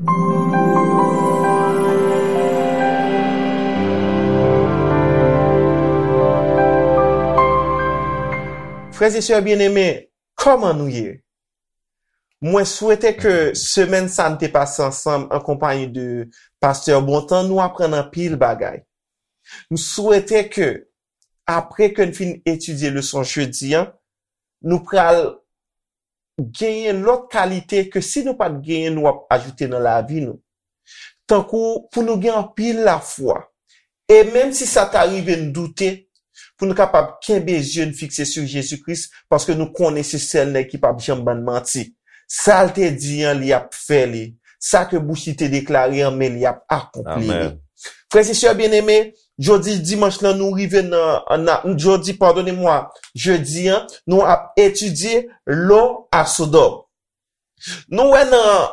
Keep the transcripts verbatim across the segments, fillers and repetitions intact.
Frè e sè byeneme, kòman nou ye? Mwen swete ke semèn sa n te pase ansanm an konpayi de Pastè Bontan, nou aprann anpil bagay. M swete ke, apre ke n fin etidye leson jedi an, nou pral genyen lòt kalite ke si nou pa t genyen, nou ap ajoute nan lavi nou. Tankou pou nou gen anpil lafwa. E menm si sa ta rive n doute, pou nou kapab kenbe zye n fikse sou Jezi Kris, paske nou konnen se sèl nèg ki p ap janm bann manti. Sa l te di an, li ap fè li. Sa ke bouch li te deklare an, men li ap akonpli li. Amèn. Frè e sè byeneme, jodi dimanch lan, nou rive nan, nan, jodi, padone mwa, jedi an, nou ap etidye lo a Sodòm. Nou wè nan,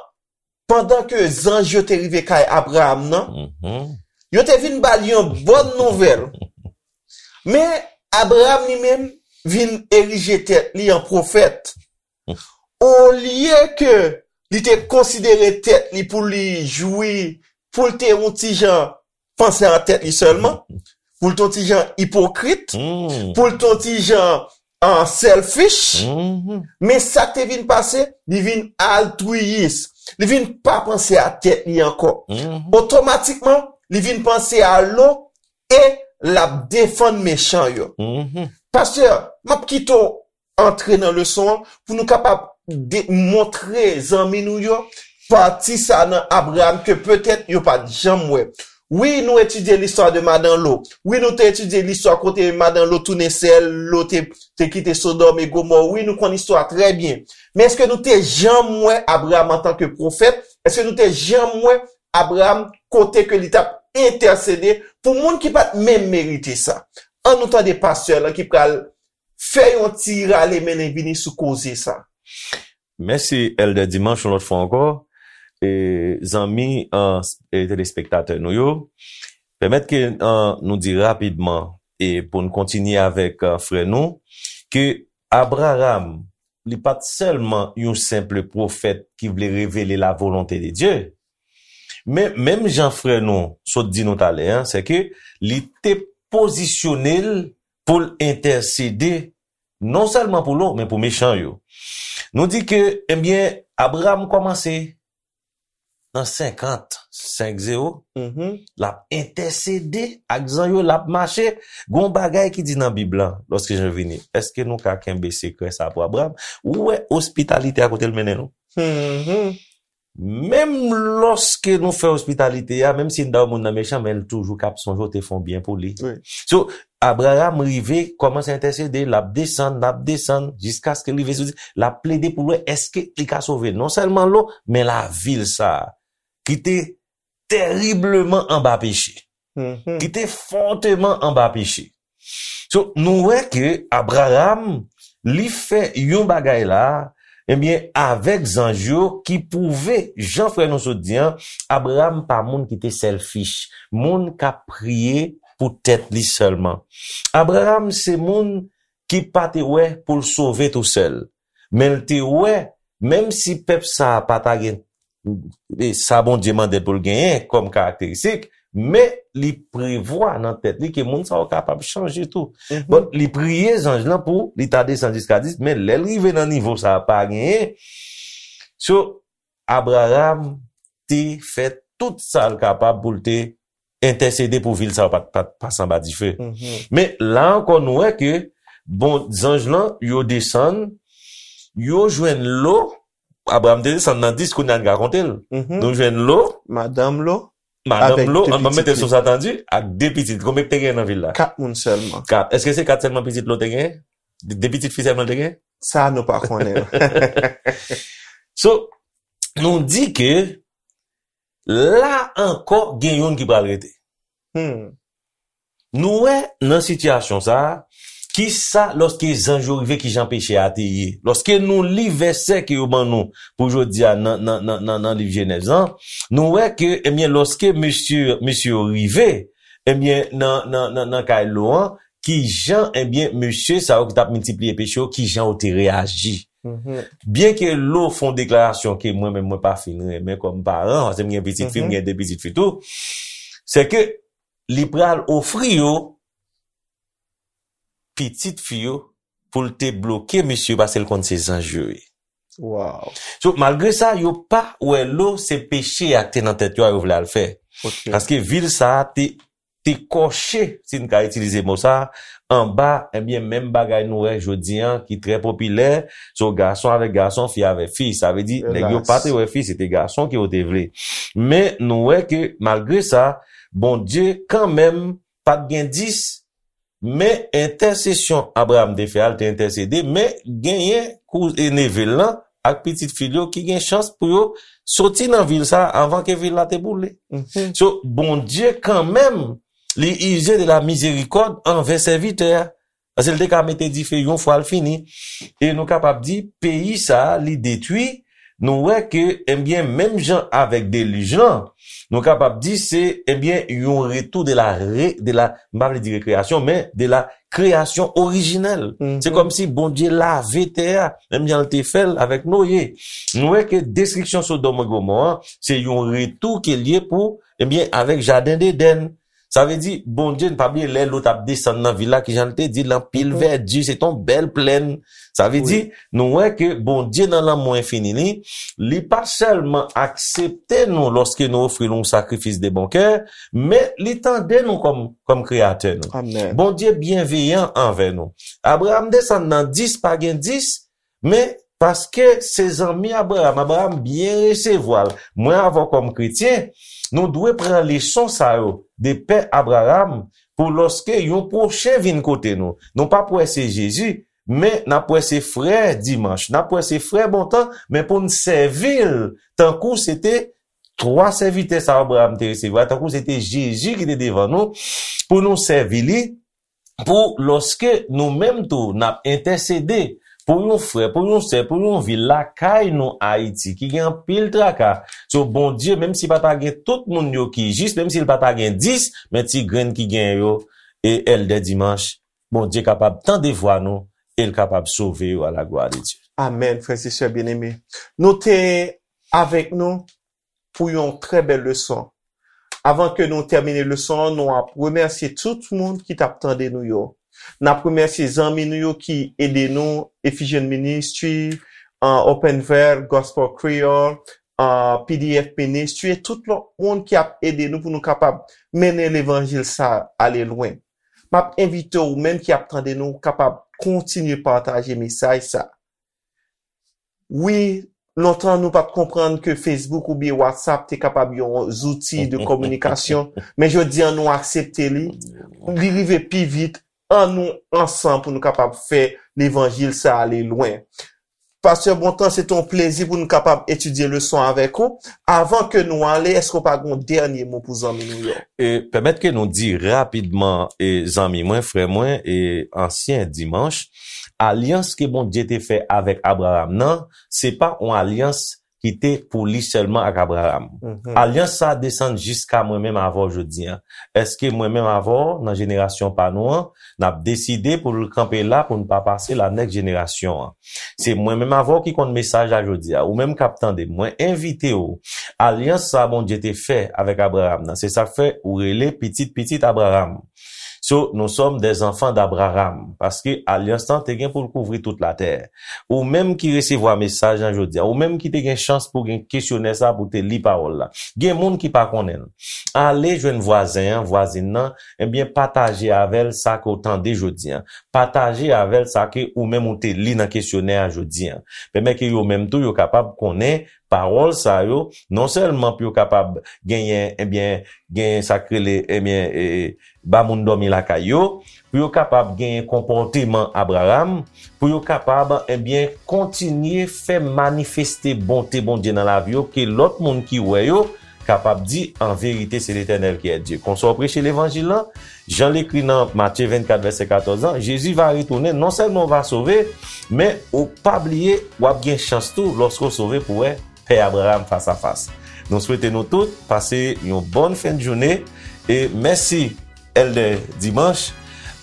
pandan ke zanj yo te rive kay Abraram nan, Mhm. yo te vin ba l yon bòn nouvèl. Men, Abraram li menm vin erije tèt li an pwofèt. Olye ke li te konsidere tèt li pou li jwi, pou l te yon ti jan panse a tèt li sèlman, pou l te yon ti jan ipokrit, Hmm. pou l te yon ti jan, ah, selfish. Mhm. Men sa k te vin pase, li vin altwiyis. Li vin pa panse a tèt li ankò. Mhm. Otomatikman, li vin panse a lo e l ap defann mechan yo. Mhm. Pastè, m ap kite w antre nan leson an pou nou kapab de-, montre zanmi nou yo pati sa nan Abraram ke petèt yo pa t janm wè. Wi, nou etidye listwa de madan Lo. Wi, nou te etidye listwa kote madan Lo tounen sè l, Lo te, te kite Sodòm e Gomò. Wi, nou konn istwa trè byen. Men èske nou te janm wè Abraram antanke pwofèt? Èske nou te janm wè Abraram kote ke li t ap entèsede pou moun ki pa t menm merite sa? An nou tande pastè lan ki pral fè yon ti rale mennen vini sou koze sa. Mèsi, Èldè Dimanch, yon lòt fwa ankò. E, zanmi, an, e, telespektatè nou yo, pèmèt ke, an, nou di rapidman, e pou n kontinye avèk, an, frè nou, ke Abraram, li pa t sèlman yon senp pwofèt ki vle revele la volonte de Dye, men, menm jan frè nou sot di nou talè an, se ke li te pozisyone l pou l entèsede non sèlman pou Lo, men pou mechan yo. Nou di ke, ebyen, Abraram kòmanse nan senkant, senk zewo, Mhm. l ap entèsede ak zanj yo, l ap mache. Gon bagay ki di nan Bib lan, lòske jan vini, èske nou ka kenbe sekrè sa pou Abraram? Ou wè ospitalite a kote l mennen nou? Mhm. Menm lòske nou fè ospitalite a, menm si n da yon moun nan mechan, men l toujou k ap sonje w te fè yon byen pou li. Wi. So, Abraram rive, kòmanse entèsede, l ap desann, l ap desann, jiskaske l rive sou, l ap plede pou l wè èske li ka sove non sèlman Lo, men lavil sa a, ki te teribleman anba peche, Mhm. ki te fòteman anba peche. So, nou wè ke Abraram, li fè yon bagay la, ebyen, avèk zanj yo ki pwouve, jan frè nou sot di an, Abraram pa moun ki te selfish, moun k ap priye pou tèt li sèlman. Abraram se moun ki pa te wè pou l sove tousèl, men l te wè, menm si pèp sa a pa ta gen e sa Bondye mande l pou l genyen kòm karakteristik, men li prevwa nan tèt li ke moun sa yo kapab chanje tou. Mhm. Bon, li priye zanj lan pou li ta desann jiska dis, men lè l rive nan nivo sa a, pa genyen. So, Abraram te fè tout sa l kapab pou l te entèsede pou vil sa yo pa, pa, pa pase anba dife. Mhm. Men la ankò, nou wè ke, bon, zanj lan, yo desann, yo jwenn Lo, Abraram te desann nan dis, kounye a n ka konte l. Mhm. Nou jwenn Lo, Madanm Lo, madanm avèk Lo, de an, ban m mete l pitit sou li. Sa tande, ak de pitit. Konbyen ki te gen nan vil la? Kat moun sèlman. Kat. Èske se kat sèlman pitit Lo te gen? De, de pitit fi sèlman l te gen? Sa nou pa konnen. So, nou di ke la ankò gen youn ki pral rete. Hmm. Nou wè nan sitiyasyon sa a, kisa, lòske zanj yo rive, kijan peche a te ye? Lòske nou li vèsè ke yo ban nou pou jodi a nan, nan, nan, nan, nan liv Jenèz lan, nou wè ke, ebyen, lòske mesye, mesye yo rive, ebyen, nan, nan, nan, nan kay Lo an, kijan, ebyen, mesye sa yo ki t ap miltipliye peche yo, kijan yo te reyaji? Byen ke Lo fè yon deklarasyon ke mwen menm mwen pa fin renmen kòm paran, paske m gen pitit fi, m gen de pitit fi tou, se ke li pral ofri yo pitit fi yo pou l te bloke misye paske l konn se zanj yo ye. Wow. So, malgre sa, yo pa wè Lo se peche a ki te nan tèt yo a yo vle al fè. Ok. Paske vil sa a te, te kòche, si n ka itilize mo sa a, anba, ebyen, menm bagay nou wè jodi an ki trè popilè, so gason avèk gason, fi avèk fi. Sa vle di, nèg yo Elas. Pa te wè fi, se te gason ke yo te vle. Men, nou wè ke, malgre sa, Bondye, kanmenm, pa t gen dis, men entèsesyon Abraram te fè a, l te entèsede, men genyen kou e neve l lan ak pitit fi l yo ki gen chans pou yo soti nan vil sa a anvan ke vil la te boule. Mhm. So, Bondye kanmenm, li ize de la mizerikòd anvè sèvitè a. Paske l te ka mete dife yon fwa l fini. E nou kapab di, peyi sa a, li detwi. Nou wè ke, ebyen, menm jan avèk delij lan, nou kapab di se, ebyen, yon retou de la, re, de la, m pa vle di rekreasyon, men de la kreyasyon orijinèl. Mhm. Se kòmsi Bondye lave tè a, menm jan l te fè l avèk Noye. Nou wè ke destriksyon Sodòm e Gomò an, se yon retou ke l ye pou, ebyen, avèk Jaden Edenn. Sa vle di, Bondye, n pa bliye lè Lot ap desann nan vil la, kijan l te di, l anpil vèdi, se te yon bèl plèn. Sa vle di, nou wè ke Bondye nan lanmou enfini li, li pa sèlman aksepte nou lòske nou ofri l yon sakrifis de bon kè, men li tande nou kòm, kòm kreyatè nou. Amen. Bondye byenveyan anvè nou. Abraram desann nan dis, pa gen dis, men paske se zanmi Abraram, Abraram byen resevwa l. Mwen avè w kòm kretyen, nou dwe pran leson sa yo de pè Abraram pou lòske yon pwochen vin kote nou, nou p ap wè se Jezi, men n ap wè se frè Dimanch, n ap wè se frè Bontan, men pou n sèvi l tankou se te twa sèvitè sa Abraram te resevwa, tankou se te Jezi ki te devan nou, pou nou sèvi li, pou lòske nou menm tou n ap entèsede pou yon frè, pou yon sè, pou yon vil lakay nou Ayiti ki gen anpil traka. So Bondye, menm si pa ta gen tout moun yo ki jis, menm si l pa ta gen dis, men ti grenn ki gen yo, e Èldè Dimanch, Bondye kapab tande vwa nou e l kapab sove yo à la gloire de Dieu. Amen, frè e sè byeneme. Nou te avèk nou pou yon trè bèl leson. Avan ke nou tèmine leson an, nou ap remèsye tout moun ki t ap tande nou yo. N ap remèsye zanmi nou yo ki ede nou, Ephesian Ministry, uh, Open Veil, Gospel Creole, uh, P D F Ministry, e tout lòt moun ki ap ede nou pou nou kapab mennen levanjil sa ale lwen. M ap envite w, ou menm ki ap tande nou, kapab kontinye pataje mesaj sa. Wi, lontan nou pa t konprann ke Facebook oubyen WhatsApp te kapab yon zouti de kominikasyon, men jodi an nou aksepte li. Li rive pi vit, an nou ansanm pou nou kapab fè levanjil sa ale lwen. Pastè Bontan, se te yon plezi pou nou kapab etidye leson avèk ou. Avan ke nou ale, èske w pa gen yon dènye mo pou zanmi nou yo? E pèmèt ke nou di rapidman, e zanmi mwen, frè mwen, e ansyen Dimanch, alyans ke Bondye te fè avèk Abraram nan, se pa yon alyans ki te pou li sèlman ak Abraram. Alyans sa a desann jiska mwen menm avè w jodi an. Èske mwen menm avè w, nan jenerasyon pa nou an, n ap deside pou l kanpe la pou n pa pase la nèks jenerasyon an? Se mwen menm avè w ki konn mesaj la jodi a. Ou menm k ap tande m, mwen envite w. Alyans sa a Bondye te fè avèk Abraram nan, se sa k fè ou rele pitit pitit Abraram. So, nous sommes des enfants d'Abraham, paske alyans lan te gen pou l kouvri tout latè. Ou menm ki resevwa mesaj lan jodi a, ou menm ki te gen chans pou gen kesyonè sa pou te li pawòl la. Gen moun ki pa konnen l. Ale jwenn vwazen an, vwazin nan, ebyen pataje avè l sa ke w tande jodi an. Pataje avè l sa ke ou menm ou te li nan kesyonè a jodi an. Pèmèt ke yo menm tou yo kapab konnen pawòl sa yo, non sèlman pou yo kapab genyen, ebyen, genyen sa k rele, ebyen, e, ba moun dòmi lakay yo, pou yo kapab genyen konpòteman Abraram, pou yo kapab, ebyen, kontinye fè manifeste bonte Bondye nan lavi yo, ke lòt moun ki wè yo kapab di, an verite, se Letènèl ki è Dye. Konsa w preche levanjil lan, jan l ekri nan Matye vennkat, vèsè katòz lan, Jezi va retounen, non sèlman w va sove, men ou pa bliye, w ap gen chans tou, lòske w sove, pou wè pè Abraram fas a fas. Nou swete nou tout pase yon bòn fen de jounen e mèsi Èldè Dimanch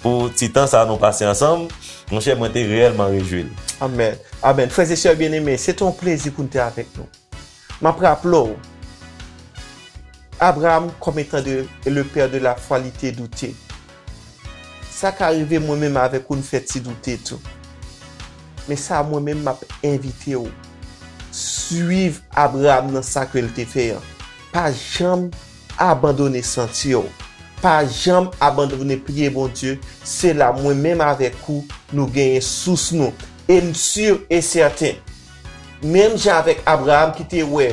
pou ti tan sa nou pase ansanm. Monchè, mwen te reyèlman rejwi l. Amèn. Amèn. Frè e sè byeneme, se te yon plezi pou n te avèk nou. M ap raple w, Abraham, kòm etan de le père de la foi, li te doute. Sa ka rive mwen menm avèk ou, n fè ti doute tou. Men sa, mwen menm, m ap envite w. Swiv Abraham nan sa ke l te fè an. Pa janm abandone senti w. Pa janm abandone priye Bondye. Se la, mwen menm avèk ou, nou genyen sous nou. E m si e sèten, menm jan avèk Abraham ki te wè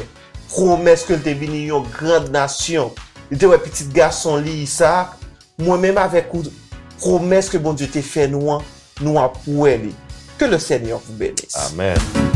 pwomès ke l te vini yon gran nasyon, li te wè pitit gason li, Isak, mwen menm avèk ou, pwomès ke Bondye te fè nou an, nou ap wè li. Que le Seigneur vous bénisse. Amèn.